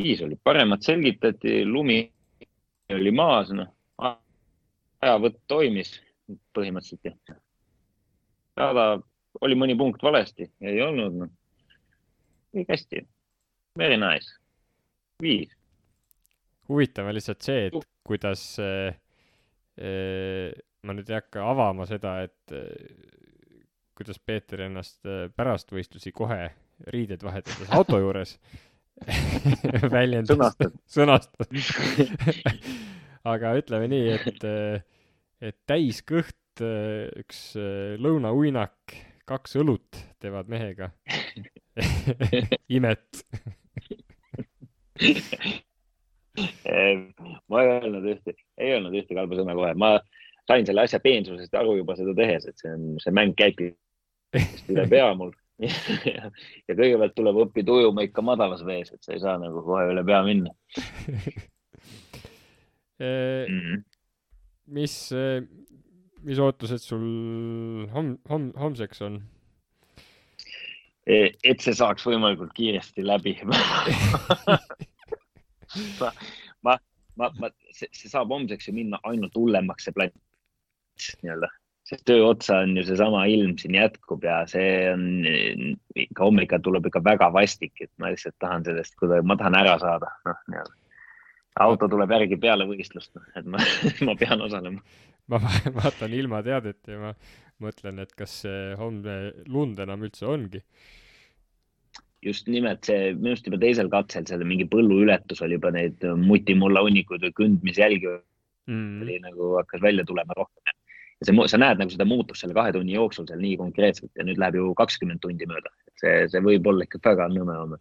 5 oli. Paremat selgitati, lumi oli maas, ajavõtt toimis põhimõtteliselt. Rada oli mõni punkt valesti, ei olnud. Kõik hästi. Very nice. 5. Huvitav on lihtsalt see, et kuidas ma nüüd ei hakka avama seda, et kuidas Peeter ennast pärast võistlusi kohe riided vahetades auto juures väljendas. Sõnastad. Aga ütleme nii, et täis kõht, üks lõunauinak, 2 õlut teevad mehega. Imet. Ma ei öelnud ühte kalba sõna kohe. Ma sain selle asja peensusest aru juba seda tehes, et see mäng käibki üle pea mul. Ja kõigepealt tuleb õppida ujuma ikka madalas vees, et sa ei saa nagu kohe üle pea minna. Mis ootused sul homseks on? Et see saaks võimalikult kiiresti läbi. See saab homseks ju minna ainult hullemaks see plats nii-öelda. See töö otsa on ju see sama ilm siin jätkub ja see on ikka hommika tuleb ikka väga vastik, et ma lihtsalt tahan sellest, ma tahan ära saada. Auto tuleb järgi peale võistlust, et ma pean osalema. Ma vaatan ilma teadet ja ma mõtlen, et kas see homne lund enam üldse ongi. Just nimelt see, minust juba teisel katsel selle mingi põllu ületus oli juba neid mutimulla unnikuid või kündmisjälgi oli nagu hakkas välja tulema rohkem. Ja sa näed nagu seda muutust selle 2 tunni jooksul seal nii konkreetselt ja nüüd läheb ju 20 tundi mööda. See võib olla ikka väga nõme homme.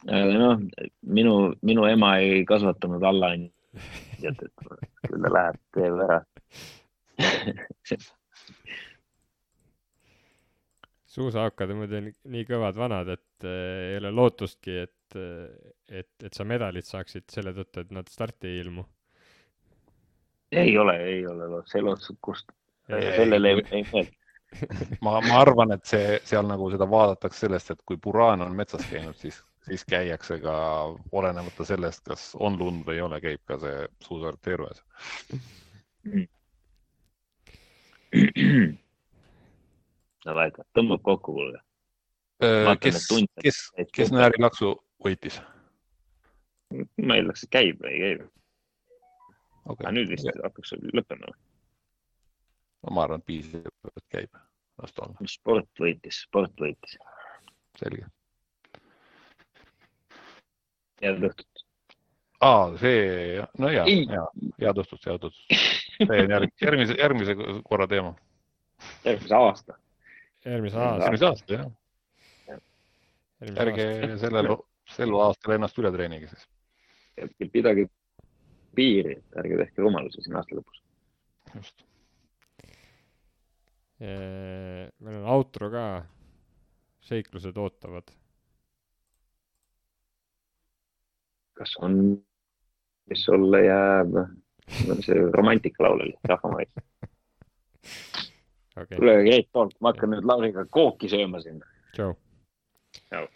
Aga minu ema ei kasvatanud alla et küll ta läheb teeb ära. Suusahakkad on muidu nii kõvad vanad, et ei ole lootustki, et sa medalit saaksid selle tõttu, et nad starti ei ilmu. Ei ole see lootus, kust sellele ei mõeld. Ma arvan, et seal nagu seda vaadatakse sellest, et kui Buraan on metsas käinud, siis käiakse ka olenemata sellest, kas on lund või ei ole, käib ka see suusarienteerujas. Tõmbab kokku kuulge. Kes Nääri laksu võitis? Ma eeldaks, et käib või ei käib. Okay. Aga nüüd vist hakkaks lõppema. Ma arvan, et piisab, et käib. Sport võitis. Selge. Head õhtut. See, no head õhtut. See on järgmise korra teema. Järgmise aasta. Järgmise aasta, jah. ärge sel aastal ennast üle treenige siis. Pidage piiri, ärge tehke rumalusi siin aasta lõpus. Just. Meil on outro ka. Seiklused ootavad. Kas on, mis sulle jääb? See romantikalaul oli, rahvamaid. Okay. Tule great talk, ma hakkan nüüd Lauriga kooki sööma siin. Tšau. Tšau.